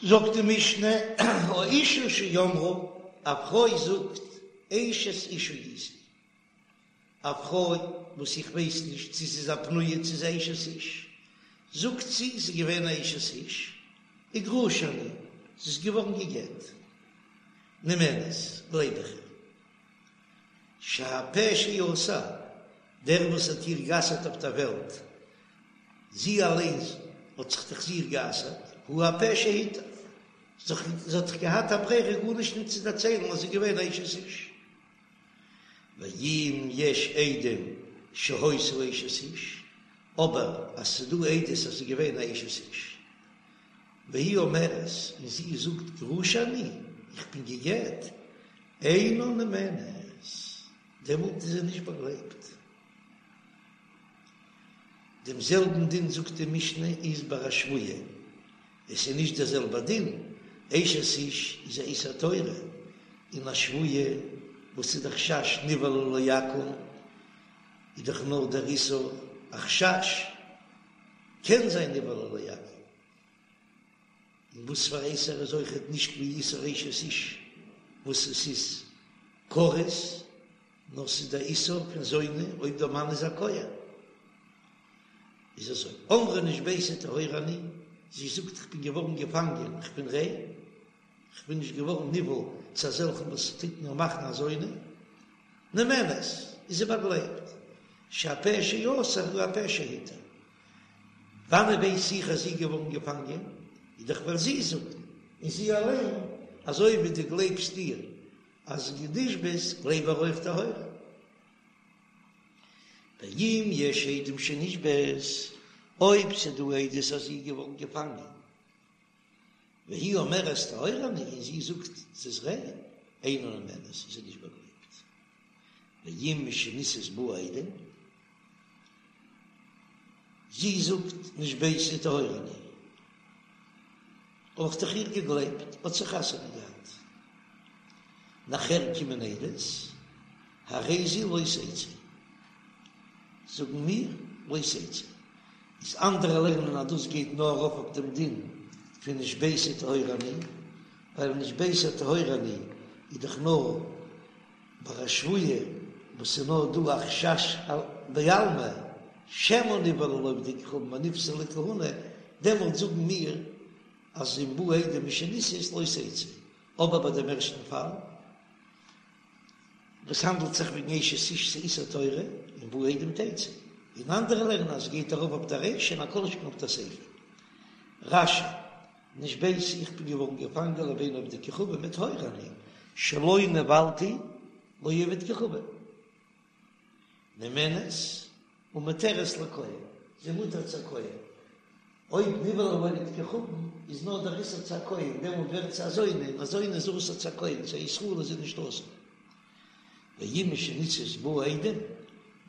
זאגט די משנה, האשה שאמרה, א פרוי זאגט, אשת איש הייתי, א פרוי וואס איך ווייס נישט צו ס'איז א פנויה צו ס'איז אשת איש, זאגט זי ס'איז געווען א אשת איש, וגרושה אני, זי איז געווארן גע'גט, נאמנת, גלייב איך איר. שהפה שאסר, דער וואס האט איר גע'אסר'ט אויף דער וועלט, זי אליינס האט זיך דאך זיך גע'אסר'ט, הוא הפה שהתיר, זי האט דאך געהאט א ברירה גארנישט נישט צו דערציילן אז זי איז געווען אשת איש. ואם יש עדים שהיתה אשת איש, אבער אז ס'איז דא עדות אז זי איז געווען א אשת איש, והיא אומרת, און זי זאגט גרושה אני, איך בין גע'גט, אינה נאמנת, דעמאלט איז זי נישט באגלייבט. דעם זעלבן דין זאגט די משנה איז ביי א שבויה, עס איז נישט דער זעלבער דין, אשת איש איז א איסור תורה, און א שבויה וואס איז די חשש נבעלה לעכו"ם איז דאך נאר דער איסור א חשש, קען זיין נבעלה לעכו"ם. און וואס פאר איסור איז אויכעט נישט ווי איסור אשת איש וואס עס איז כרת, נאר ס'איז דער איסור פון זונה אויב דער מאן איז א כהן. איז אזוי, אמרה נשביתי טהורה אני, זי זאגט איך בין געווארן געפאנגען, איך בין ריין, איך בין נישט געווארן נבעל צו אזעלכן וואס טוט מיר מאכן א זונה, נאמנת, איז זי באגלייבט, שהפה שאסר הוא הפה שהתיר. וואנען ווייס איך אז זי איז געווארן געפאנגען? איז דאך ווייל זי זאגט, און זי אליין, אזוי ווי דו גלייבסט איר אז זי נשבית, גלייב איר אויך טהורה. ואם יש עדים שנשבית, אויב ס'דא עדות אז זי איז געווארן געפאנגען, והיא אומרת טהורה אני, און זי זאגט ס'איז ריין, אינה נאמנת, איז זי נישט באגלייבט. ואם משנישאת באו עדים, זי זאגט נשביתי טהורה אני, האב איך דאך איר געגלייבט, האט זי חתונה געהאט, נאכער קומען עדות, הרי זו לא תצא, זאגן מיר לא תצא, איז אנדערע לערנען אז דאס גייט נאר ארויף אויף דעם דין פון נשביתי טהורה אני, ווייל נשביתי טהורה אני איז דאך נאר ביי א שבויה וואס איז נאר דא א חשש בעלמא שמא נבעלה לעובדי כוכבים ונפסלה לכהונה, דעמאלט זאגן מיר אז אם באו עדים משנישאת לא תצא, אבער ביי דעם ערשטן פאל וואס האנדלט זיך וועגן אשת איש ס'איז איסור תורה אם באו עדים תצא, און אנדערע לערנען אז עס גייט ארויף אויף די רישא און א כל שכן אויף די סיפא. רש"י, נשביתי איך בין געווארן געפאנגען לבין עובדי כוכבים וטהורה אני שלא נבעלתי לעובד כוכבים נאמנת ומותרת לכהן זי מותר צו א כהן אויב נבעלה לעובד כוכבים איז נאר דער איסור צו א כהן דעמאלט ווערט זי א זונה און א זונה איז אסור צו א כהן צו א ישראל איז זי נישט אסור ואם משנישאת באו עדים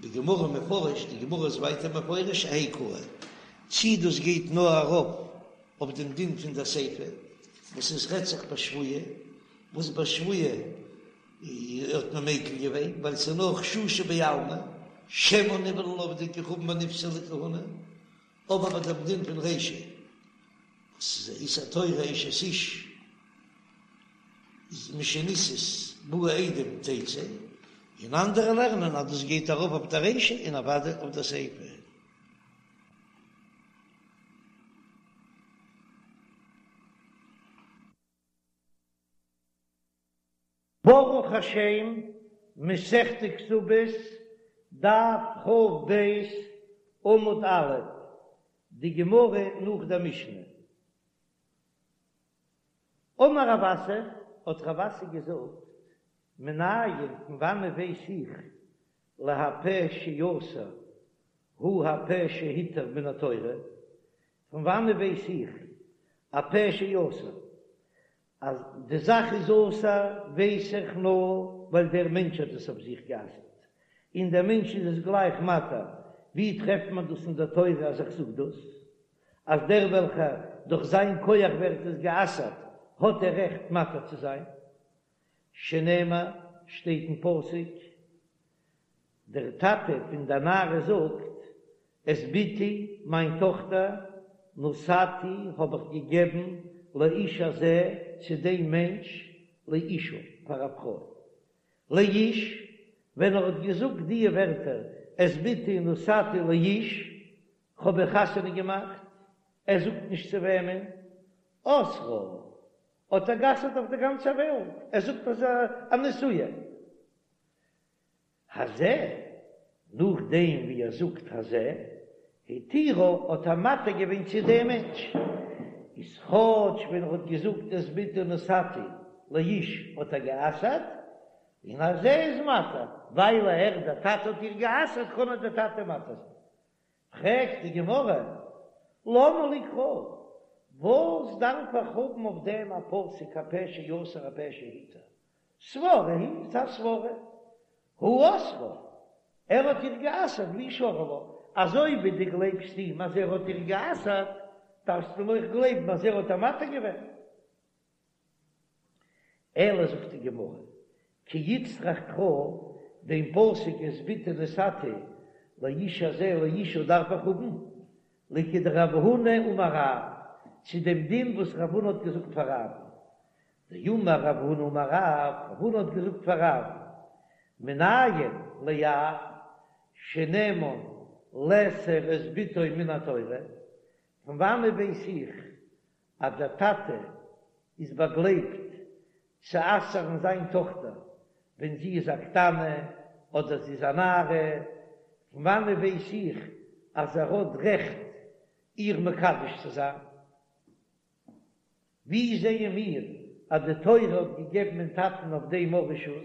בגמרא מפרש די גמרא איז ווייטער מפרש אהייא קאי צי דאס גייט נאר ארויף אויף דעם דין פון דער סיפא וואס עס רעדט זיך ביי שבויה, וואס ביי שבויה האט מען מיקל געווען ווייל ס'איז נאר חששא בעלמא, שמא נבעלה לעובדי כוכבים ונפסלה לכהונה, אבער ביי דעם דין פון רישא וואס איז איסור תורה אשת איש איז משנישאת באו עדים תצא, און אנדערע לערנען אז דאס גייט ארויף אויף דער רישא און אוודאי אויף דער סיפא. ברוך השם, מסכת כתובות, דף כ"ב, עמוד א', די גמרא נאך דער משנה. אמר רב אסי, האט רב אסי געזאגט, מנין, פון וואנען ווייס איך, להפה שאסר הוא הפה שהתיר מן התורה, פון וואנען ווייס איך א פה שאסר אז די זאך איז אסור ווייס איך נאר ווייל דער מענטש האט עס אויף זיך גע'אסר'ט און דער מענטש איז עס גלייך מתיר, ווי טרעפט מען דאס אין דער תורה אז איך זאג דאס אז דער וועלכער דורך זיין כח ווערט עס גע'אסר'ט האט ער רעכט מתיר צו זיין? שנאמר שטייט אין פסוק דער טאטע פון דער נערה זאגט, את בתי, מיין טאכטער, נתתי, האב איך געגעבן, לאיש הזה צו דעם מענטש לאשה פאר א פרוי. לאיש, ווען ער האט געזאגט דיע ווערטער את בתי נתתי לאיש, כ'האב איר חתונה געמאכט, ער זאגט נישט צו וועמען, אסרה, האט ער גע'אסר'ט אויף די גאנצע וועלט, ער זאגט אז א נשואה. הזה, נאכדעם ווי ער זאגט הזה, התירה האט ער מתיר געווען צו דעם מענטש, איז כאטש ווען ער האט געזאגט את בתי נתתי לאיש האט ער גע'אסר'ט, און הזה איז מתיר, ווייל ער דער טאטע האט איר גע'אסר'ט קען איר דער טאטע מתיר זיין. פרעגט די גמרא, למה לי קרא, וואס דארף איך האבן אויף דעם א פסוק הפה שאסר הפה שהתיר, סברא היא, ס'איז א סברא, הוא אסרה, ער האט איר גע'אסר'ט והוא שרי לה, אזוי ווי דו גלייבסט אים אז ער האט איר גע'אסר'ט, דארפסטו אים אויך גלייבן אז ער האט איר מתיר געווען. אלא זאגט די גמרא, כי איצטריך קרא, דעם פסוק את בתי נתתי לאיש הזה לאשה דארף איך האבן, לכדרב הונא אמר רב, צו דעם דין וואס רב הונא האט געזאגט פאר רב, דאמר רב הונא אמר רב, רב הונא האט געזאגט פאר רב, מנין לאב שנאמן לאסור את בתו מן התורה, פון וואנעט ווייס איך אז דער טאטע איז באגלייבט צו אסר'ן זיין טאכטער ווען זי איז א קטנה אדער זי איז א נערה, פון וואנעט ווייס איך אז ער האט רעכט איר מקדש צו זיין? ווי זעען מיר אז די תורה האט געגעבן דעם טאטן אויף דעם א רשות?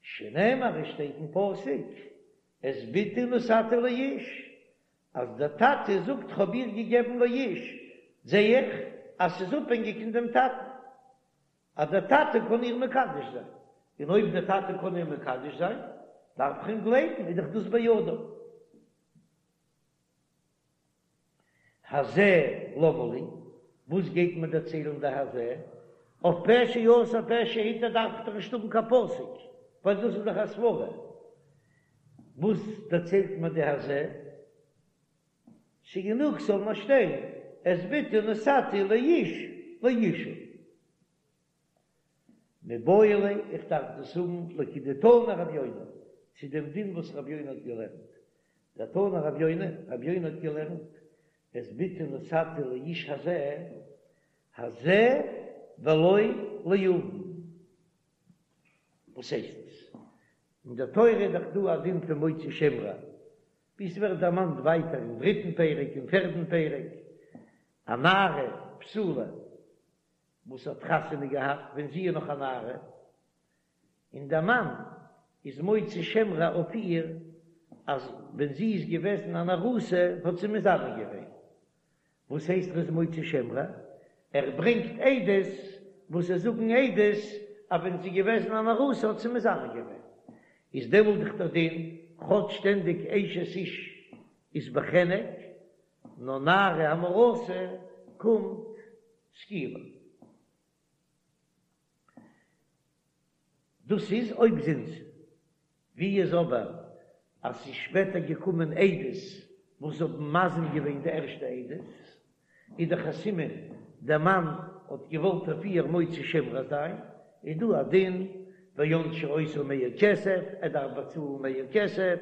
שנאמר עס שטייט אין פסוק את בתי נתתי לאיש, אז דער טאטע זאגט כ'האב איר געגעבן לאיש, זע איך אז ס'איז אפהענגיק אין דעם טאטן, אז דער טאטע קען איר מקדש זיין, און אויב דער טאטע קען איר מקדש זיין, דארף איך אים גלייבן, איז דאך דאס בידו. הזה למה לי, וואס גייט מיר דערציילן די הזה? אויף פה שאסר פה שהתיר דארף איך דאך נישט האבן קיין פסוק, ווייל דאס איז דאך א סברא. וואס דערציילט מיר די הזה? ס'גענוג ס'זאל נאר שטיין את בתי נתתי לאיש לאשה. מיבעי ליה, איך דארף דאס האבן לכדתנא רב יונה, צו דעם דין וואס רב יונה האט געלערנט. דתנא רב יונה, רב יונה האט געלערנט, את בתי נתתי לאיש הזה, הזה ולא ליבם. וואס הייסט עס? אין דער תורה איז דאך דא א דין פון מוציא שם רע, ווי ס'ווערט דערמאנט ווייטער אין דריטן פרק און פערדן פרק, א נערה בתולה וואס האט חתונה געהאט ווען זי איז נאך א נערה, און דער מאן איז מוציא שם רע אויף איר אז ווען זי איז געוועזן אן ארוסה האט זי מזנה געווען. וואס הייסט ער איז מוציא שם רע? ער ברענגט עדות וואס זיי זאגן עדות אז ווען זי איז געוועזן אן ארוסה האט זי מזנה געווען. איז דעמאלט דאך דער דין כאטש שטענדיג אשת איש איז בחנק, נאר נערה המאורסה קומט סקילה. דאס איז אויב זינתה. ווי איז אבער אז ס'איז שפעטער געקומען עדות וואס האבן מזים געווען די ערשטע עדות, איז דאך א סימן דער מאן האט געוואלט אויף איר מוציא שם רע זיין, איז דא א דין וענשו אותו מאה כסף, ער דארף באצאלן מאה כסף,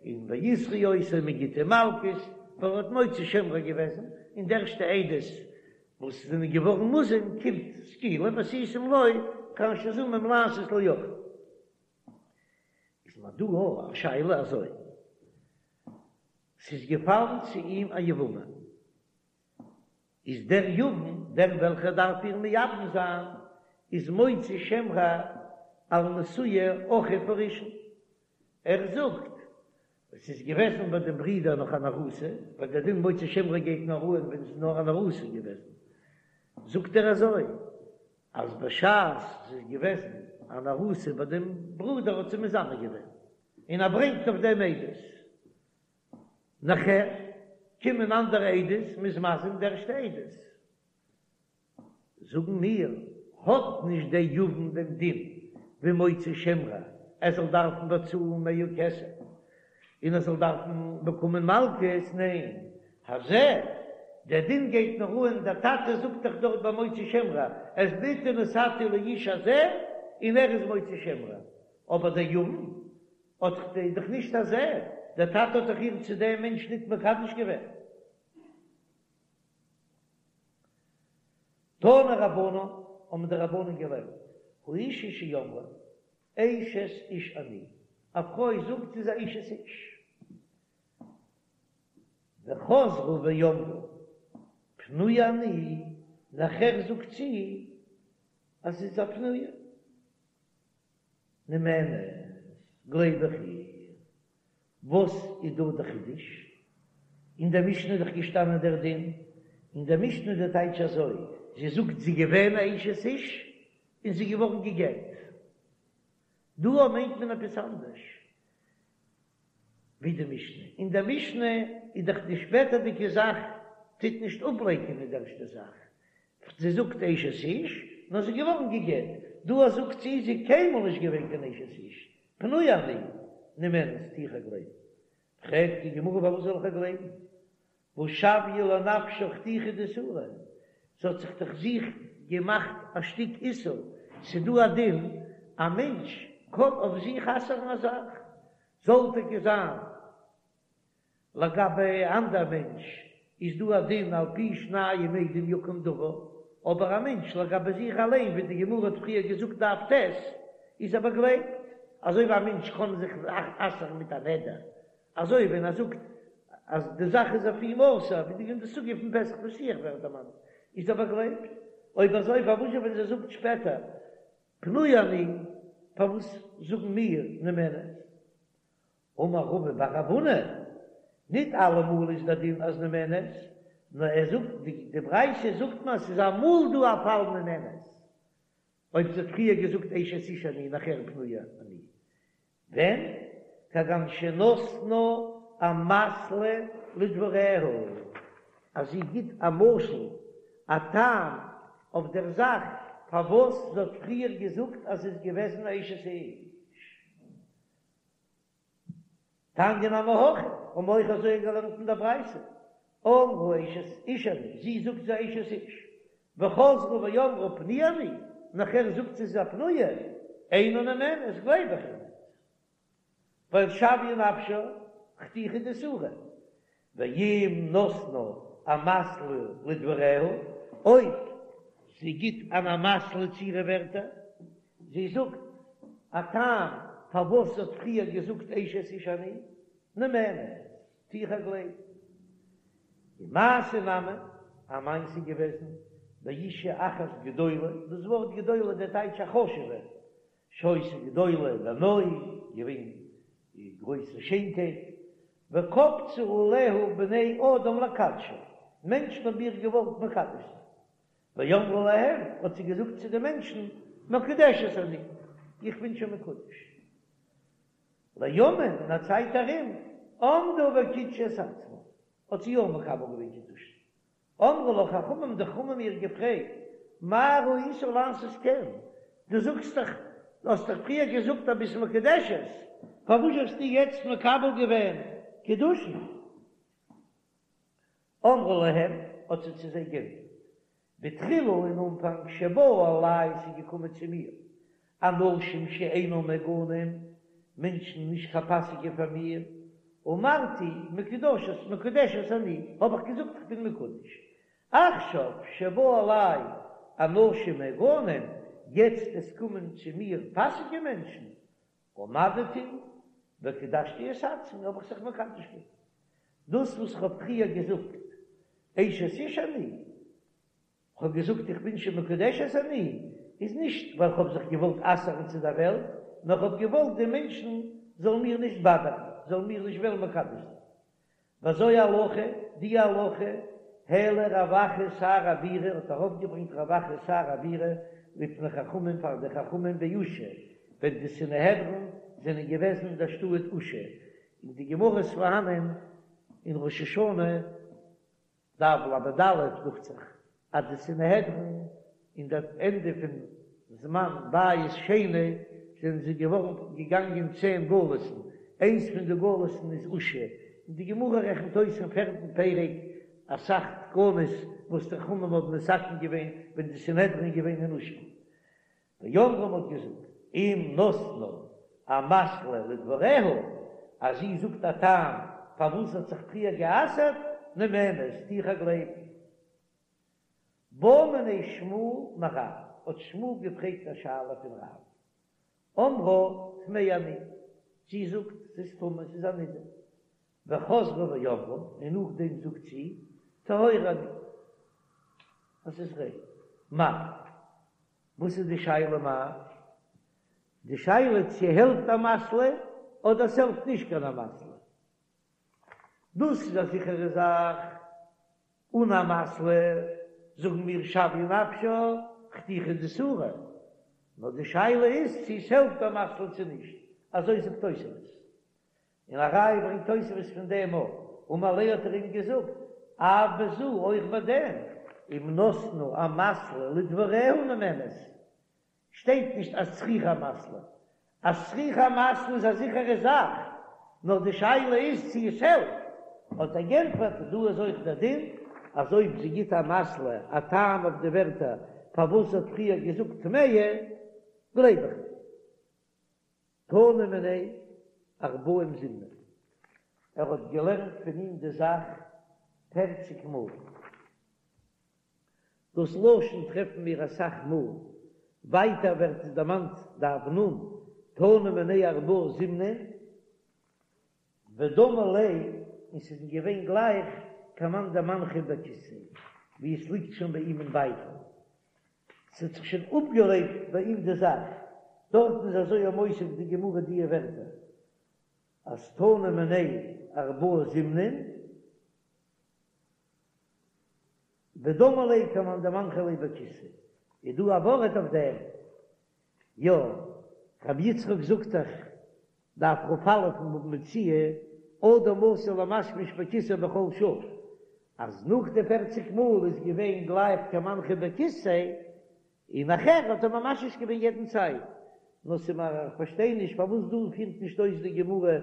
און ויסרו אותו מען גיט אים מלקות, ווייל ער האט מוציא שם רע געוועזן, און די ערשטע עדות וואס זענען געווארן מוזם קומט סקילה ועשיתם לו כאשר זמם לעשות לאחיו. איז מיר דא א שאלה אזוי, ס'איז געפאלן צו אים א יבמה, איז דער יבם, דער וועלכער דארף איר מייבם זיין, איז מוציא שם רע על נשואי אחיו הראשון, ער זאגט, עס איז געוועזן ביי דעם ברודער נאך אן ארוסה, ווייל דער דין מוציא שם רע גייט נאר אן ווען עס איז נאר אן ארוסה געוועזן, זאגט ער אזוי, אז בשעת עס איז געוועזן אן ארוסה ביי דעם ברודער האט זי מזנה געווען, און ער ברענגט אויף דעם עדות. נאכער קומען אנדערע עדות, מ'איז מזים די ערשטע עדות. זאגן מיר, האט נישט דער יבם דעם דין ווי מוציא שם רע, ער זאל דארפן באצאלן מאה כסף, און ער זאל דארפן באקומען מלקות, ניין, הזה, דער דין גייט נאר אן, דער טאטע זאגט דאך דארט ביי מוציא שם רע, את בתי נתתי לאיש הזה, און ער איז מוציא שם רע, אבער דער יבם האט דאך נישט הזה, דער טאטע האט דאך איר צו דעם מענטש ניט מקדש געווען. תנו רבנן, האבן די רבנן געלערנט, האשה שאמרה, אשת איש אני, א פרוי זאגט זי איז א אשת איש, וחזרו ואמרו פנויה אני, נאכער זאגט זי אז זי איז א פנויה, נאמנת, גלייב איך איר. וואס איז דא די חידוש? אין דער משנה איז דאך געשטאנען דער דין, אין דער משנה איז די טייטש אזוי, זי זאגט זי איז געווען א אשת איש און זי איז געווארן גע'גט. דא מיינט מען עפעס אנדערש ווי די משנה, אין דער משנה איז דאך די שפעטערדיגע זאך טוט נישט אפלייקענען די ערשטע זאך, זי זאגט אשת איש, נאר זי איז געווארן גע'גט, דא זאגט זי זי איז קיינמאל נישט געווען קיין אשת איש, פנויה אני, נאמנת, טו איך איר גלייבן. פרעגט די גמרא פארוואס זאל איך איר גלייבן? והא שויא לנפשה חתיכה דאיסורא, זי האט זיך דאך זיך געמאכט א שטיק איסור, ס'דא א דין א מענטש קען אויף זיך אסר'ן א זאך, זאל טאקע זיין לגבי אנדער מענטש איז דא א דין על פי שניים עדים יקום דבר, אבער א מענטש לגבי זיך אליין ווי די גמרא האט פריער געזאגט דף ט' איז ער באגלייבט, אזוי ווי א מענטש קען זיך אסר'ן מיט א נדר, אזוי ווען ער זאגט אז די זאך איז אויף אים אסור, ווי אין די סוגיא פון פתח פתוח ווערט דערמאנט, איז ער באגלייבט. אויב אזוי פארוואס ווען זי זאגט שפעטער פנויה אני, פארוואס זאגן מיר נאמנת? אמר רבא בר רב הונא, ניט אלעמאל איז דער דין אז נאמנת, נאר ער זאגט, די ברייתא זאגט מיר אז ס'איז אמאל דא א פאל נאמנת, אויב זי האט פריער געזאגט אשת איש אני נאכער פנויה אני, ווען? כגון שנתנה אמתלא לדבריה, אז זי גיט א משל, א טעם אויף דער זאך פארוואס זי האט פריער געזאגט אז זי איז געוועזן א אשת איש. תניא נמי הכי, האבן מיר אויך אזוי געלערנט אין דער ברייתא, אמרה אשת איש אני, זי זאגט זי איז אשת איש, וחזרו ואמרו פנויה אני, נאכער זאגט זי זי איז א פנויה, אינה נאמנת, גלייב איך איר ניט, ווייל שויא נפשה חתיכה דאיסורא, ואם נתנה אמתלא לדבריה, אויב זי גיט אן אמתלא צו אירע ווערטער, זי זאגט א טעם פארוואס זי האט פריער געזאגט אשת איש אני, נאמנת, טו איך איר גלייבן. ומעשה נמי, א מעשה געוועזן, באישה אחת גדולה, דאס ווארט גדולה דער טייטש א חשוב'ע, שהיתה גדולה בנוי, געווען גרויסע שיינקייט, וקפצו עליה בני אדם לקדשה, מענטשן האבן איר געוואלט מקדש זיין, ואמרה להם, האט זי געזאגט צו די מענטשן, מקודשת אני, איך בין שוין מקודש. לימים, אין א צייט ארום, עמדה וקידשה את עצמה, האט זי יא מקבל געווען קידושין. אמרו לה חכמים, די חכמים האבן איר געפרעגט, מה ראית לעשות כן, דו זאגסט דאך, דו האסט דאך פריער געזאגט אז ביסט מקודשת, פארוואס האסטו יעצט מקבל געווען קידושין? אמרה להם, האט זי צו זיי גענטפערט, בתחילה אין אנפאנג שבאו אלי ס'איז געקומען צו מיר אנשים שאינם מהוגנים, מענטשן נישט קיין פאסיגע פאר מיר, אמרתי מקודשת מקודשת אני, האב איך געזאגט איך בין מקודש, עכשיו שבאו אלי אנשים מהוגנים, יעצט עס קומען צו מיר פאסיגע מענטשן, עמדתי וקדשתי את עצמי, האב איך זיך מקדש געווען. דאס וואס איך האב פריער געזאגט אשת איש אני, כ'האב געזאגט איך בין שוין מקודשת אני, איז נישט ווייל כ'האב זיך געוואלט אסר'ן צו דער וועלט, נאר כ'האב געוואלט די מענטשן זאלן מיר נישט באדערן, זאלן מיר נישט וועלן מקדש זיין. וזו הלכה, די הלכה, העלה רב אחא שר הבירה, האט ארויפגעברענגט רב אחא שר הבירה לפני חכמים פאר די חכמים באושא, ווען די סנהדרין זענען געוועזן אין דער שטאט אושא, אין די גמרא איז פארהאנען אין ראש השנה, דף ל"א דוכט זיך אז די סנהדרין אין די ענדע פון זמן בית שני זענען זיי געווארן געגאנגען צען גלות'ן, איינס פון די גלות'ן איז אושא, און די גמרא רעכנט אויס אין פערטן פרק. אסאך תקנות וואס די חכמים האבן מתקן געווען ווען די סנהדרין איז געווען אין אושפע. ואמרו מ'האט געזאגט, אם נתנה אמתלא לדבריה, אז זי זאגט א טעם פארוואס זי האט זיך פריער גע'אסר'ט, נאמנת, טו איך איר גלייבן. בעא מיניה שמואל מרב, האט שמואל געפרעגט א שאלה פון רב, אמרה טמאה אני, זי זאגט ס'איז טמא, ס'איז א נידה, וחזרה ואמרה, און נאכדעם זאגט זי טהורה אני, אז ס'איז ריין. מהו? וואס איז די שאלה מהו? די שאלה צו העלפט אמתלא אדער ס'העלפט נישט קיין אמתלא. דאס איז א זיכערע זאך, אן אמתלא זאגן מיר שוויה נפשה חתיכה דאיסורא, נאר די שאלה איז צו עס העלפט אמתלא צו נישט, אזוי זאגט תוספות, און א ראיה ברענגט תוספות פון דעם אויך, אמר ליה האט ער אים געזאגט, אף בזו אויך ביי דעם, אם נתנה אמתלא לדבריה נאמנת, שטייט נישט אז צריכה אמתלא, אז צריכה אמתלא איז א זיכערע זאך, נאר די שאלה איז צו עס העלפט, האט ער גענטפערט, דא איז אויך דער דין, אז אויב זי גיט אמתלא א טעם אויף די ווערטער פארוואס זי האט פריער געזאגט טמאה, גלייב איך איר. תנא מיניה ארבעים זימנין, ער האט געלערנט פון אים די זאך פערציג מאל. דאס לשון טרעפן מיר אסאך מאל, ווייטער ווערט עס דערמאנט דף נ, תנא מיניה ארבעה זימנין, ודמי ליה, און ס'איז אים געווען גלייך כמאן דמנחא בכיסיה, ווי עס ליגט שוין ביי אים אין בייטל, ס'האט זיך שוין אפגעלעבט ביי אים די זאך, דארטן איז אזוי מוסיף די גמרא דיע ווערטער, אז תנא מיניה ארבעה זימנין, ודמי ליה כמאן דמנחא ליה בכיסיה, איז דא א ווארט אויף דעם? יא, רבי יצחק זאגט דאך, דף כ"א אין בבא מציעא, אדם עשוי למשמש בכיסאו בכל שעה, אז נאך די פערציג מאל איז געווען גלייך כמנחא בכיסיה, און נאכער האט ער ממשמש געווען יעדן צייט. נאר ס'מיר איך פארשטיי נישט פארוואס דא פירט נישט אויס די גמרא,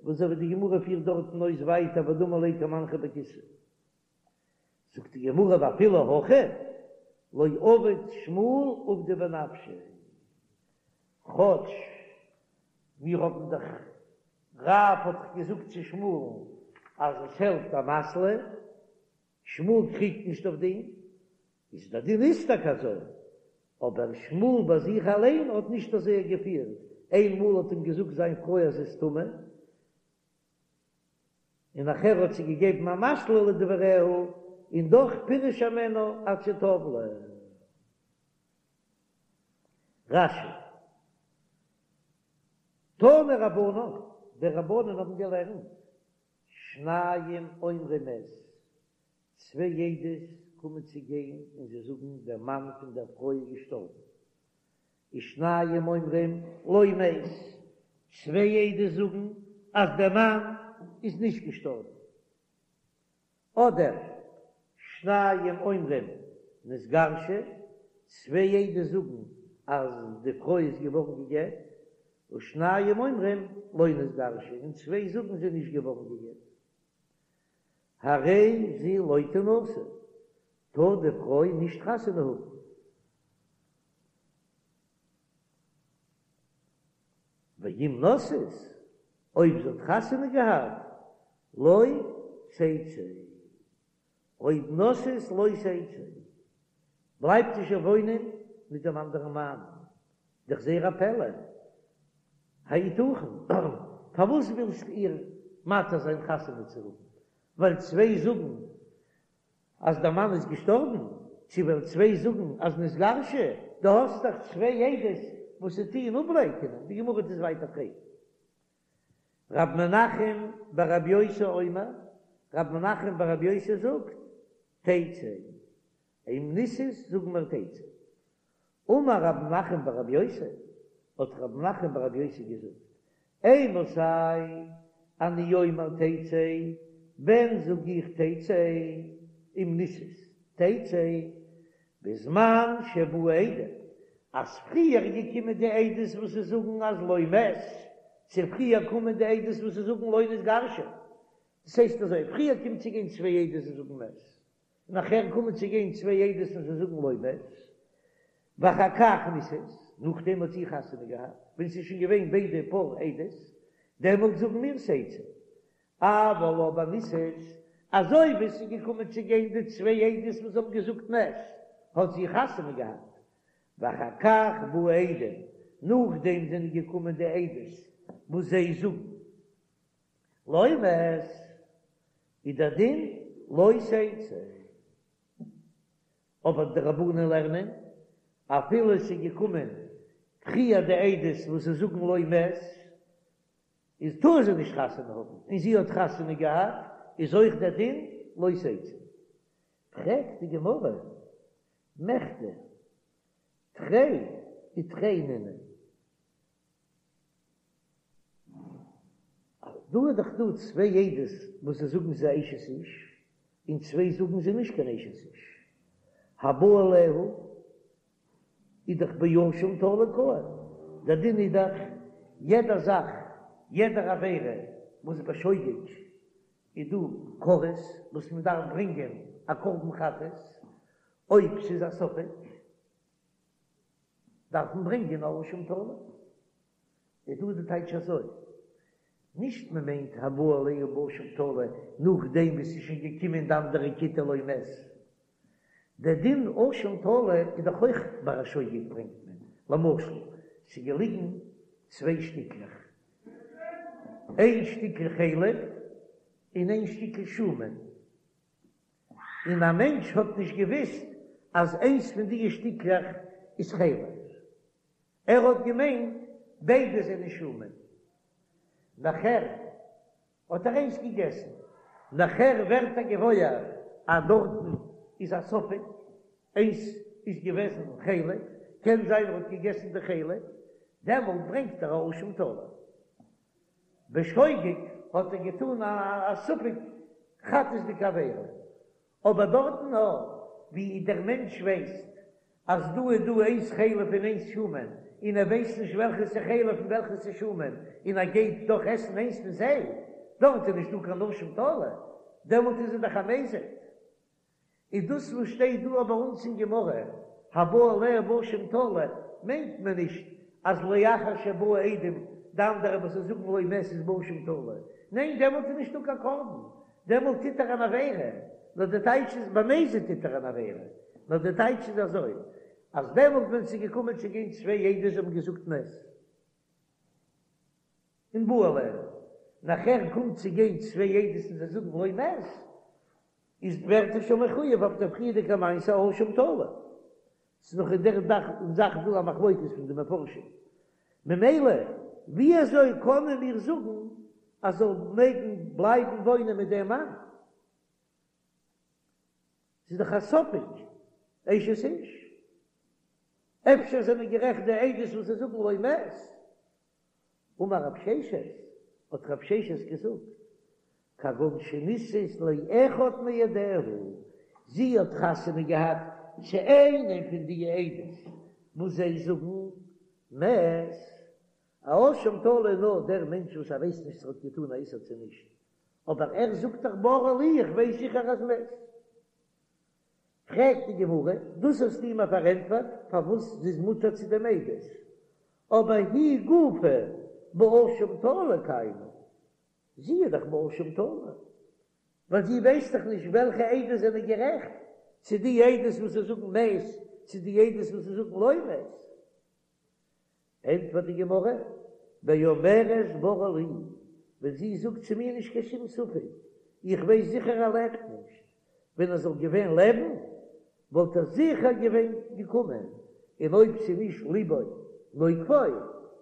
וואס אזוי ווי די גמרא פירט דארטן אויס ווייטער ודמי ליה כמנחא בכיסיה. זאגט די גמרא ואפילו הכי לא עביד שמואל עובדא בנפשיה, כאטש מיר האבן דאך רב האט דאך געזאגט צו שמואל'ן אז עס העלפט אמתלא, שמואל קריגט נישט אויף דעם, איז דער דין איז טאקע אזוי, אבער שמואל ביי זיך אליין האט נישט אזוי געפירט, איינמאל האט אים געזאגט זיין פרוי אז זי איז טמא, און נאכער האט זי געגעבן אמתלא לדבריה, און דאך פירש הימנה עד שטבלה. רש"י. תנו רבנן, די רבנן האבן געלערנט, שניים אומרים מת, צוויי עדות קומען צו גיין און זיי זאגן דער מאן פון דער פרוי איז געשטארבן, ושניים אומרים לא מת, צוויי עדות זאגן אז דער מאן איז נישט געשטארבן, אדער שניים אומרים נתגרשה, צוויי עדות זאגן אז די פרוי איז געווארן גע'גט, ושניים אומרים לא נתגרשה, און צוויי זאגן זי איז נישט געווארן גע'גט. הרי זו לא תנשא, טאר די פרוי נישט חתונה האבן. ואם נשאת, אויב זי האט חתונה געהאט, לא תצא. אויב נשאת לא תצא, בלייבט זי שוין וואוינען מיט דעם אנדערן מאן. דאך זייער א פלא. היתכן? פארוואס ווילסטו איר מתיר זיין חתונה צו האבן? ווייל צוויי זאגן אז דער מאן איז געשטארבן? צו ווייל צוויי זאגן אז נתגרשה? דו האסט דאך צוויי עדות וואס זיי טוען אפלייקענען. די גמרא וועט עס ווייטער פרעגן. רב מנחם בר רב יוסי אומר, רב מנחם בר רב יוסי זאגט, תצא. אם נישאת זאגן מיר תצא. אמר רב מנחם בר רב יוסי, האט רב מנחם בר רב יוסי געזאגט, אימתי אני אומר תצא, ווען זאג איך תצא, אם נישאת תצא, בזמן שבאו עדים, אז פריער איז געקומען די עדות וואס זיי זאגן אז לא מת, צו פריער קומען די עדות וואס זיי זאגן לא נתגרשה. דאס הייסט אזוי, פריער קומט צו גיין צוויי עדות און זאגן מת, נאכער קומען צו גיין צוויי עדות און זיי זאגן לא מת, ואחר כך נישאת, נאכדעם האט זי חתונה געהאט, ווען ס'איז שוין געווען ביידע פאר עדות, דעמאלט זאגן מיר תצא. אבל אבער נישאת, אזוי ווי ס'איז געקומען צו גיין די צוויי עדות וואס האבן געזאגט מת, האט זי חתונה געהאט, ואחר כך באו עדים, נאכדעם זענען געקומען די עדות וואס זיי זאגן לא מת, איז דער דין לא תצא. אבער די רבנן לערנען, אפילו עס איז געקומען פריער די עדות וואס זיי זאגן לא מת, איז טאר זי נישט חתונה האבן, און זי האט חתונה געהאט, איז אויך דער דין לא תצא. פרעגט די גמרא, מכדי תרי ותרי נינהו. דא איז דאך דא צוויי עדות וואס זיי זאגן זי איז אשת איש, און צוויי זאגן זי נישט קיין אשת איש. הבא עליה איז דאך באשם תלוי קאי, דער דין איז דאך יעדע זאך, יעדער עבירה וואס בשוגג איז דא כרת וואס מען דארף ברענגען א קרבן חטאת, אויב ס'איז א ספק דארף מען ברענגען א אשם תלוי. איז דא די טייטש אזוי, נישט מען מיינט הבא עליה באשם תלוי נאכדעם וואס ס'איז שוין געקומען די אנדערע כיתה לא מת. דער דין אשם תלוי איז דאך אויך ביי א שוגג ברענגט מען, למשל ס'איז געליגן צוויי שטיקלעך, איין שטיקל חלב און איין שטיקל שומן, און א מענטש האט נישט געוויסט אז איינס פון די שטיקלעך איז חלב, ער האט געמיינט ביידע זענען שומן, נאכער האט ער איינס געגעסן, נאכער ווערט ער געוואויר אז דארטן איז א ספק, איינס איז געוועזן חלב, קען זיין ער האט געגעסן די חלב, דעמאלט ברענגט ער א אשם תלוי. בשוגג האט ער געטאן א ספק חטאת'דיגע עבירה, אבער דארטן נאר ווי דער מענטש ווייסט אז דא איז דא איינס חלב און איינס שומן, און ער ווייסט נישט וועלכעס איז חלב און וועלכעס איז שומן, און ער גייט דאך עסן איינס פון זיי, דארט איז נישטא קיין אשם תלוי, דעמאלט איז ער דאך א מזיד. איז דאס וואס שטייט דא ביי אונז אין גמרא, הבא עליה באשם תלוי, מיינט מען נישט אז לאחר שבאו עדים די אנדערע וואס זיי זאגן לא מת איז באשם תלוי, ניין דעמאלט איז נישטא קיין קרבן, דעמאלט טוט ער אן עבירה, נאר די טייטש איז במזיד טוט ער אן עבירה, נאר די טייטש איז אזוי, אז דעמאלט ווען ס'איז געקומען צו גיין צוויי עדות האבן געזאגט מת און בא עליה, נאכער קומט צו גיין צוויי עדות און זיי זאגן לא מת, איז ווערט ער שוין מחויב אויף דער פריערדיגע מעשה אשם תלוי. ס'איז נאך אין דער זאך דא א מחלוקת פון די מפרשים. ממילא ווי אזוי קענען מיר זאגן אז זאל מעגן בלייבן וואוינען מיט דעם מאן? ס'איז דאך א ספק אשת איש. אפשר זענען גערעכט די עדות וואס זיי זאגן לא מת. אמר רב ששת, האט רב ששת געזאגט, כגון שנישאת לאחד מעדיה, זי האט חתונה געהאט צו איינעם פון די עדות וואס זיי זאגן מת, א אשם תלוי נאר דער מענטש וואס ער ווייסט נישט צו ער האט געטאן א איסור צו נישט, אבער ער זאגט דאך ברור לי איך ווייס זיכער אז מת. פרעגט די גמרא, דאס האסטו מיר פארענטפערט פארוואס זי איז מותר צו דעם עדות, אבער היא גופה באשם תלוי קיימא, זי איז דאך באשם תלוי, ווייל זי ווייסט דאך נישט וועלכע עדות זענען גערעכט, צו די עדות וואס זיי זאגן מת, צו די עדות וואס זיי זאגן לא מת. ענטפערט די גמרא, באומרת ברור לי, ווען זי זאגט צו מיר נישט קיין שום ספק, איך ווייס זיכער ער לעבט נישט, ווען ער זאל געווען לעבן וואלט ער זיכער געווען געקומען, און אויב ס'איז נישט ליבו נוקפו,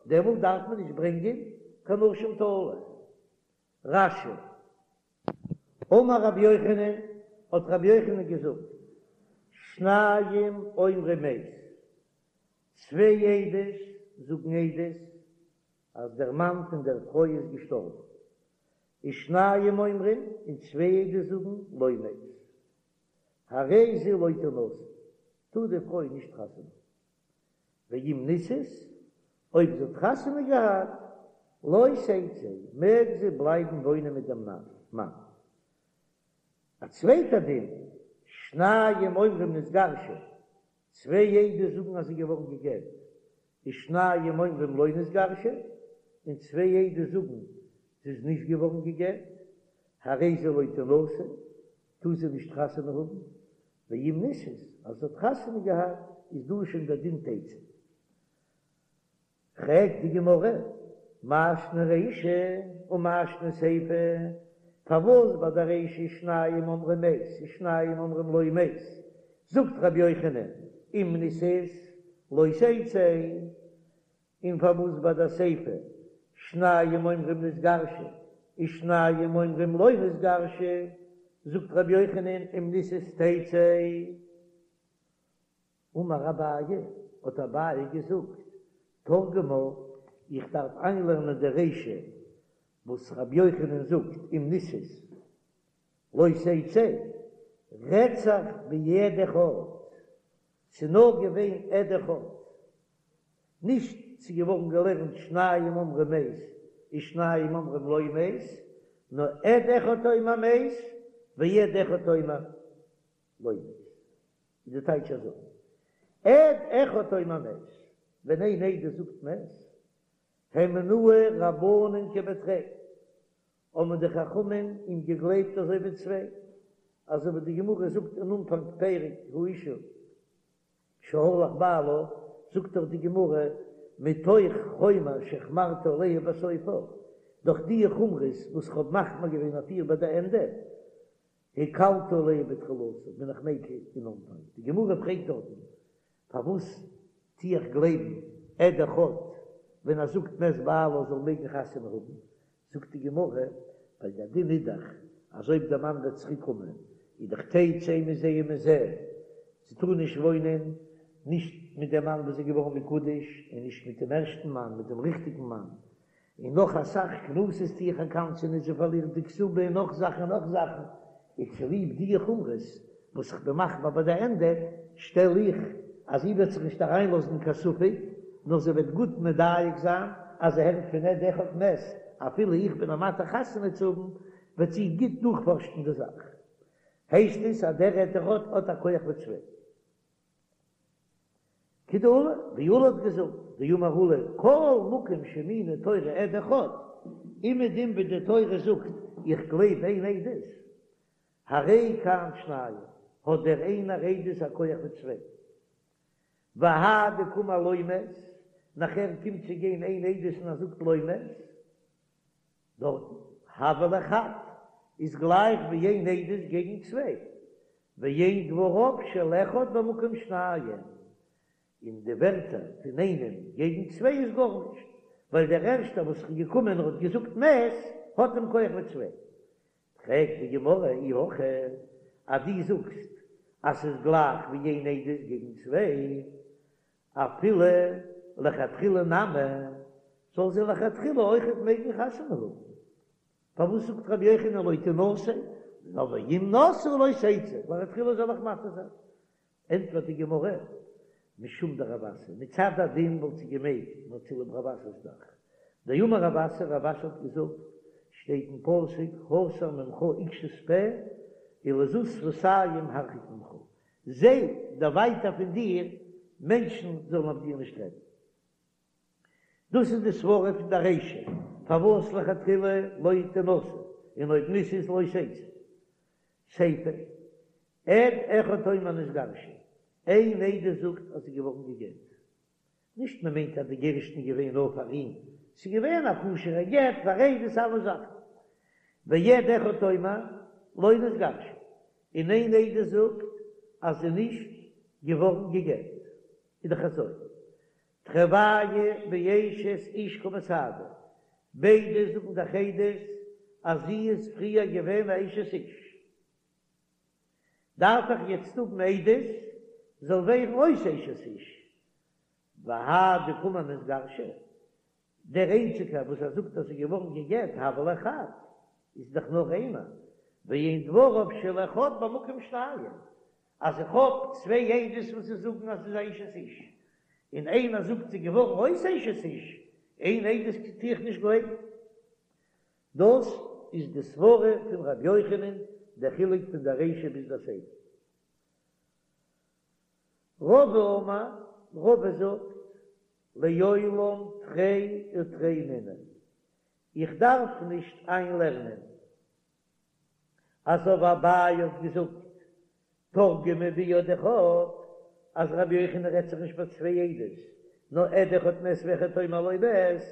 דעמאלט דארף מען נישט ברענגען קיין אשם תלוי. רש"י. אמר רבי יוחנן, האט רבי יוחנן געזאגט, שניים אומרים מת, צוויי עדות זאגן עדות אז דער מאן פון דער פרוי איז געשטארבן, ושניים אומרים, און צוויי עדות זאגן לא מת, הרי זו לא תנשא, טאר די פרוי נישט חתונה האבן, ואם נישאת, אויב זי האט חתונה געהאט, לא תצא, מעג זי בלייבן וואוינען מיט דעם מאן. א צווייטע דין, שניים אומרים נתגרשה, צוויי עדות זאגן אז זי איז געווארן גע'גט, ושניים אומרים לא נתגרשה, און צוויי עדות זאגן זי איז נישט געווארן גע'גט, הרי זו לא תנשא, טאר זי נישט חתונה האבן, ואם נישאת, אז זי האט חתונה געהאט, איז דא שוין דער דין תצא. פרעגט די גמרא, מאי שנא רישא ומאי שנא סיפא, פארוואס ביי די רישא שניים אומרים מת ושניים אומרים לא מת, זאגט רבי יוחנן אם נישאת לא תצא, און פארוואס ביי די סיפא שניים אומרים נתגרשה ושניים אומרים לא נתגרשה, זאגט רבי יוחנן אם נישאת תצא. אמר אביי, האט אביי געזאגט, תרגמה, איך דארף איינלערנען די רישא וואס רבי יוחנן זאגט אם נישאת לא תצא, רעדט זיך בעד אחד, ס'איז נאר געווען עד אחד, נישט ס'איז געווארן געלערנט שניים אומרים מת ושניים אומרים לא מת, נאר עד אחד אומר מת ועד אחד אומר לא מת. איז די טייטש אזוי, עד אחד אומר מת, ווען איין עדות זאגט מת, הימנוהו רבנן כבתרי, האבן די חכמים אים געגלייבט אזוי ווי צוויי, אזוי ווי די גמרא זאגט אין אנפאנג פרק האשה שהלך בעלה, זאגט דאך די גמרא מתוך חומר שהחמרתי עליה בסופה, דורך די חומרות וואס כ'האב מחמיר געווען אויף איר ביי די ענדע, הקלתי עליה בתחילתה, בין איך מיקל אין אנפאנג. די גמרא פרעגט דארטן, פארוואס טו איך גלייבן עד אחד ווען ער זאגט מת בעלה זאל מעגן חתונה האבן? זאגט די גמרא, ווייל דער דין איז דאך אז אויב דער מאן וועט צוריק קומען איז דאך תצא מזה ומזה, זי טאר נישט וואוינען נישט מיט דעם מאן וואס איז געווארן מקודש און נישט מיט דעם ערשטן מאן, מיט דעם ריכטיגן מאן, און נאך אסאך קנסות טו איך איר קנס'ענען זי פארלירט די כתובה און נאך זאכן און נאך זאכן, איז צוליב די חומרות וואס איך בין מחמיר ביי די ענדע, שטעל איך אז זי וועט זיך נישט אריינלאזן אין קיין ספק, נאר זי וועט גוט מדייק זיין אז זי הערט פון עד אחד מת, אפילו איך בין איר מתיר חתונה צו האבן, וועט זי גוט דורכפארשן די זאך. הייסט עס אז דער עד אחד האט א כח ווי צוויי. כדעולא, ווי עולא האט געזאגט, דאמר עולא, כל מקום שהאמינה תורה עד אחד, אומעדום ווי די תורה זאגט איך גלייב איין עדות, הרי כאן שניים, האט דער איינער עדות א כח ווי צוויי. והאי דקאמר לא מת, נאכער קומט צו גיין איין עדות און ער זאגט לא מת, דארטן, הוה ליה חד, איז גלייך ווי איין עדות געגן צוויי, ואין דבריו של אחד במקום שניים, און די ווערטער פון איינעם געגן צוויי איז גארנישט, ווייל דער ערשטער וואס איז געקומען און האט געזאגט מת, האט דעם כח ווי צוויי. פרעגט די גמרא אי הכי, אז דו זאגסט אז ס'איז גלייך ווי איין עדות געגן צוויי, אפילו לכתחילה נמי, זאל זי לכתחילה אויכעט מעגן חתונה האבן. פארוואס זאגט רבי יוחנן לא תנשא, נאר ואם נשאה לא תצא, לכתחילה זאל איך מתיר זיין. ענטפערט די גמרא, משום דרב אסי, מצד הדין וואלט זי געמעגט, נאר צוליב רב אסי'ס זאך. דאמר רב אסי, רב אסי האט געזאגט, שטייט אין פסוק, הסר ממך עקשות פה, ולזות שפתים הרחק ממך, זיי דערווייטער פון דיר, מענטשן זאלן אויף דיר נישט רעדן. דאס איז די סברא פון די רישא, פארוואס לכתחילה לא תנשא, און אויב נישאת לא תצא. סיפא, עד אחד אומר נתגרשה, איין עדות זאגט אז זי איז געווארן גע'גט. נישט מען מיינט אז די גירושין איז געווען נאר פאר אים, ס'איז געווען א כשר'ע גט פאר עדות אלע זאכן. ועד אחד אומר לא נתגרשה, און איין עדות זאגט אז זי איז נישט געווארן גע'גט. איז דאך אזוי, תרוייהו באשת איש קא מסהדו, ביידע זאגן דאך עדות אז זי איז פריער געווען א אשת איש, דארף איך יעצט האבן עדות זאל ווערן אויס אשת איש, והאי דקאמר נתגרשה, דער איינציגער וואס ער זאגט אז זי איז געווארן גע'גט הוה ליה חד, איז דאך נאר איינער, ואין דבריו של אחד במקום שניים, אז איך האב צוויי עדות וואס זיי זאגן אז ס'איז א אשת איש, און איינער זאגט ס'איז געווארן אויס אשת איש, איין עדות טו איך נישט גלייבן. דאס איז די סברה פון ר' יוחנן. דער חילוק פון דער רישא ביז דער סיפא. רבא אמר, רבא זאגט, לעולם תרי ותרי נינהו, איך דארף נישט איינלערנען אזוי ווי אביי האט געזאגט תרגמה בעד אחד אז רבי יוחנן רעדט זיך נישט ביי צוויי עדות נאר עד אחד מת ואחד אומר לא מת,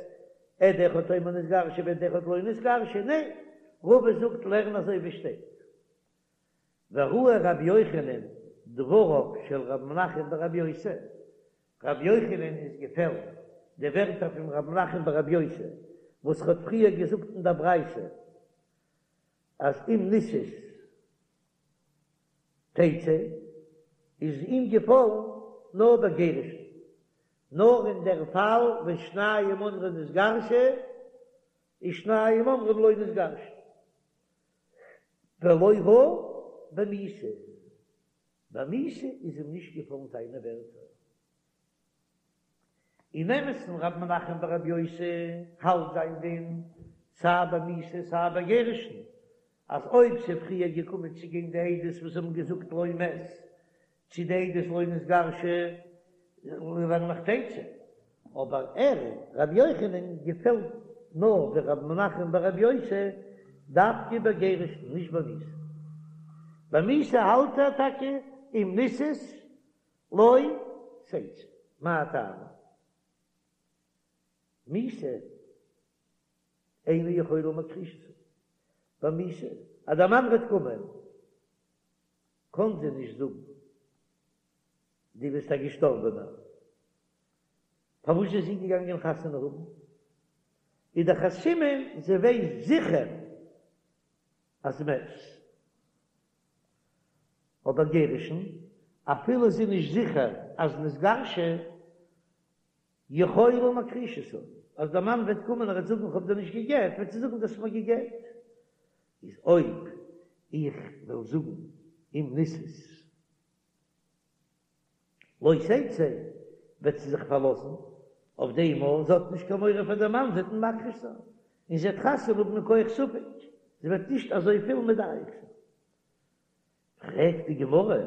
עד אחד אומר נתגרשה ועד אחד לא נתגרשה, ניין, רבא זאגט לערן אזוי ווי שטייט. וראה רבי יוחנן דבריו של ר' מנחם ברבי יוסי, רבי יוחנן איז געפעלן די ווערטער פון ר' מנחם ברבי יוסי וואס ער האט פריער געזאגט אין דער ברייתא אז אם נישאת תצא איז אים געפאלן נאר ביי גירושין, נאר אין דער פאל ווען שניים אומרים נתגרשה ושניים אומרים לא נתגרשה. ולא ראה במיתה, ביי מיתה איז אים נישט געפאלן זיינע ווערטער. אין אמת'ן ר' מנחם ברבי יוסי האלט זיין דין סיי ביי מיתה סיי ביי גירושין, אז אויב ס'איז פריער געקומען צו גיין די עדות וואס האבן געזאגט לא מת, צו די עדות לא נתגרשה לערן איך תצא, אבער ער רבי יוחנן געפעלט נאר ווי רבי מנחם ברבי יוסי דווקא ביי גירושין נישט ביי מיתה, ביי מיתה האלט ער טאקע אם נישאת לא תצא, מאי טעמא? מיתה אינה יכולה מכחישתו, ביי מיתה אז דער מאן וועט קומען קאָן זי נישט זאָגן, דו ביסט אַ געשטאָרבענער. פֿאַר וואָס איז זי געגאַנגען חתונה האָבן? איז דאָך אַ סימן, זי ווייסט זיכער, אַז מת. אָבער גירושין, אַפֿילו זי איז נישט זיכער, אַז נתגרשה, יכולה מכחישתו, אז דער מאן וועט קומען און ער וועט זאגן איך האב דיר נישט גע'גט, וועט זי זאגן דו האסט מיר גע'גט. איז אויב איך וועל זאגן אם נישאת לא תצא, וועט זי זיך פארלאזן אויף דעם אז זי האט נישט קיין מורא פאר דעם מאן, זי וועט אים מכחיש זיין, און זי וועט חתונה האבן מכח ספק, זי וועט נישט אזויפיל מדייק זיין. פרעגט די גמרא,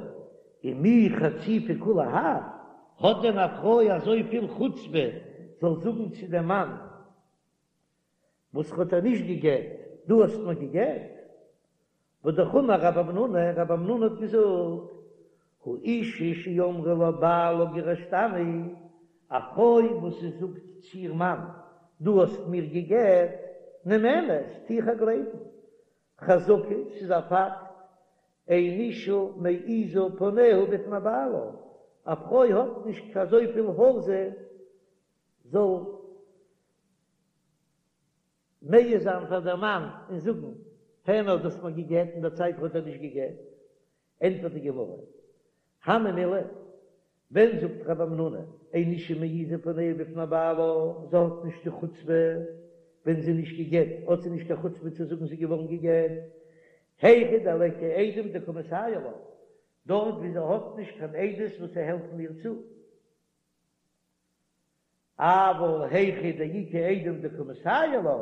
ומי חציפה כולי האי, האט דען א פרוי אזויפיל חוצפה זאל זאגן צו דעם מאן וואס האט איר נישט גע'גט, דו האסט מיר גע'גט? והא אמר רב המנונא, רב המנונא האט געזאגט, האשה שאמרה לבעלה גירשתני, א פרוי וואס זי זאגט צו איר מאן, דו האסט מיר גע'גט, נאמנת, טו איך איר גלייבן, חזקה, ס'איז א פאקט, אין אשה מעיזה פניה בפני בעלה, א פרוי האט נישט אזויפיל העזה זאל מעיז זיין פאר דער מאן און זאגן, הער נאר דו האסט מיר גע'גט אין דער צייט האט ער נישט גע'גט, ענטפערט די גמרא, הני מילי, ווען זאגט רב המנונא, אין אשה מעיזה פניה בפני בעלה, זי האט נישט די חוצפה, ווען זי איז נישט גע'גט האט זי נישט קיין חוצפה צו זאגן זי איז געווארן גע'גט, היכא דליכא עדים דקא מסייעי לה, דארט ווי זי האט נישט קיין עדות וואס העלפן איר צו. אבל היכא דאיכא עדים דקא מסייעי לה,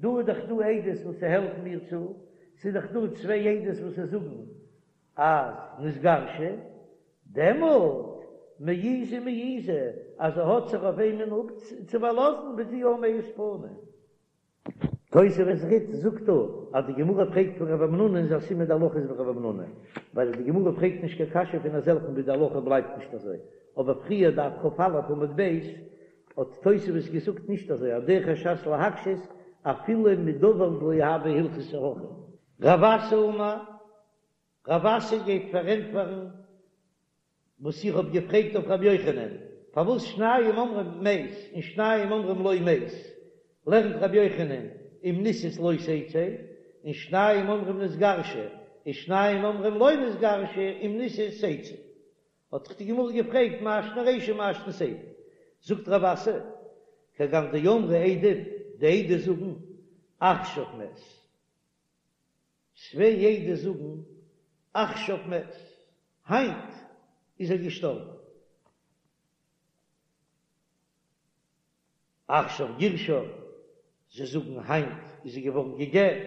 דא איז דאך דא עדות וואס העלפן איר צו, ס'איז דאך דא צוויי עדות וואס זאגן אז נתגרשה, דעמאלט מעיזה מעיזה אז זי האט זיך אויף וועמען צו פארלאזן וועט זי יא מעיז פנים. תוספות רי"ד זאגט דא אז די גמרא פרעגט פון רב המנונא איז א סימן די הלכה איז ווי רב המנונא, ווייל די גמרא פרעגט נישט קיין קשיא פון אזעלכן ווי די הלכה בלייבט נישט אזוי, אבער פריער דף כ"א עמוד ב' האט תוספות געזאגט נישט אזוי אז דרך הש"ס להקשות אפילו מדבר דלא הוה הלכתא הכי. רב אסי אמר, רב אסי גייט פארענטפערן וואס איך האב געפרעגט אויף רבי יוחנן, פארוואס שניים אומרים מת און שניים אומרים לא מת, לערנט רבי יוחנן אם נישאת לא תצא, און שניים אומרים נתגרשה, און שניים אומרים לא נתגרשה אם נישאת תצא. האט דאך די גמרא געפרעגט מאי שנא רישא מאי שנא סיפא, זאגט רב אסי, כגון דאמרי עדים, די עדות זאגן עכשיו מת. צוויי עדות זאגן עכשיו מת, היינט איז ער געשטארבן. עכשיו גירשה, זיי זאגן היינט איז זי געווארן גע'גט.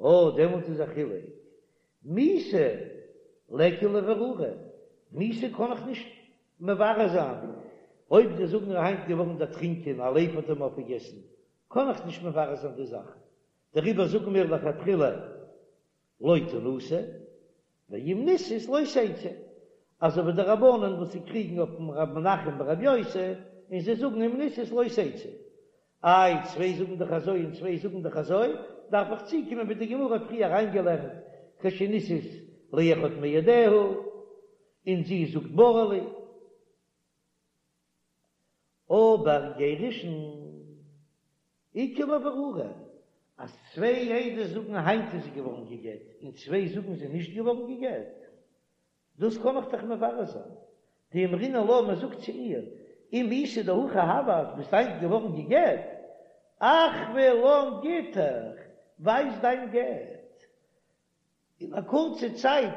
אה, דעמאלט איז א חילוק. מיתה ליכא לברורה, מיתה קען איך נישט מברר זיין, אויב זיי זאגן ער היינט געווארן דערטרינקען, א לייב האט אים אויפגעגעסן, קען איך נישט מברר זיין די זאך, דעריבער זאגן מיר לכתחילה לא תנשא, ואם נישאת לא תצא, אזוי ווי די רבנן וואס זיי קריגן אויפן רב מנחם ברב יוסי, און זיי זאגן אם נישאת לא תצא. איי, צוויי זאגן דאך אזוי און צוויי זאגן דאך אזוי, דארף איך צוקומען ווי די גמרא האט פריער אריינגעלערנט כשנישאת לאחד מעדיה, און זי זאגט ברור לי. אבער גירושין איכא לברורה, אז צוויי עדות זאגן היינט איז זי געווארן גע'גט און צוויי זאגן זי איז נישט געווארן גע'גט, דאס קען איך דאך מברר זיין. דאמרינן לה, מען זאגט צו איר, אם איתא דהכי הוה אז ביסט היינט געווארן גע'גט, אחוי לן גיטך, ווייז דיין גט. אין א קורצע צייט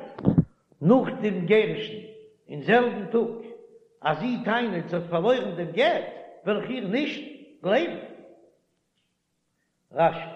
נאך דעם גירושין, אין זעלבן טאג, אז זי טענה'ט זי האט פארלוירן דעם גט, וועל איך איר נישט גלייבן. רש"י.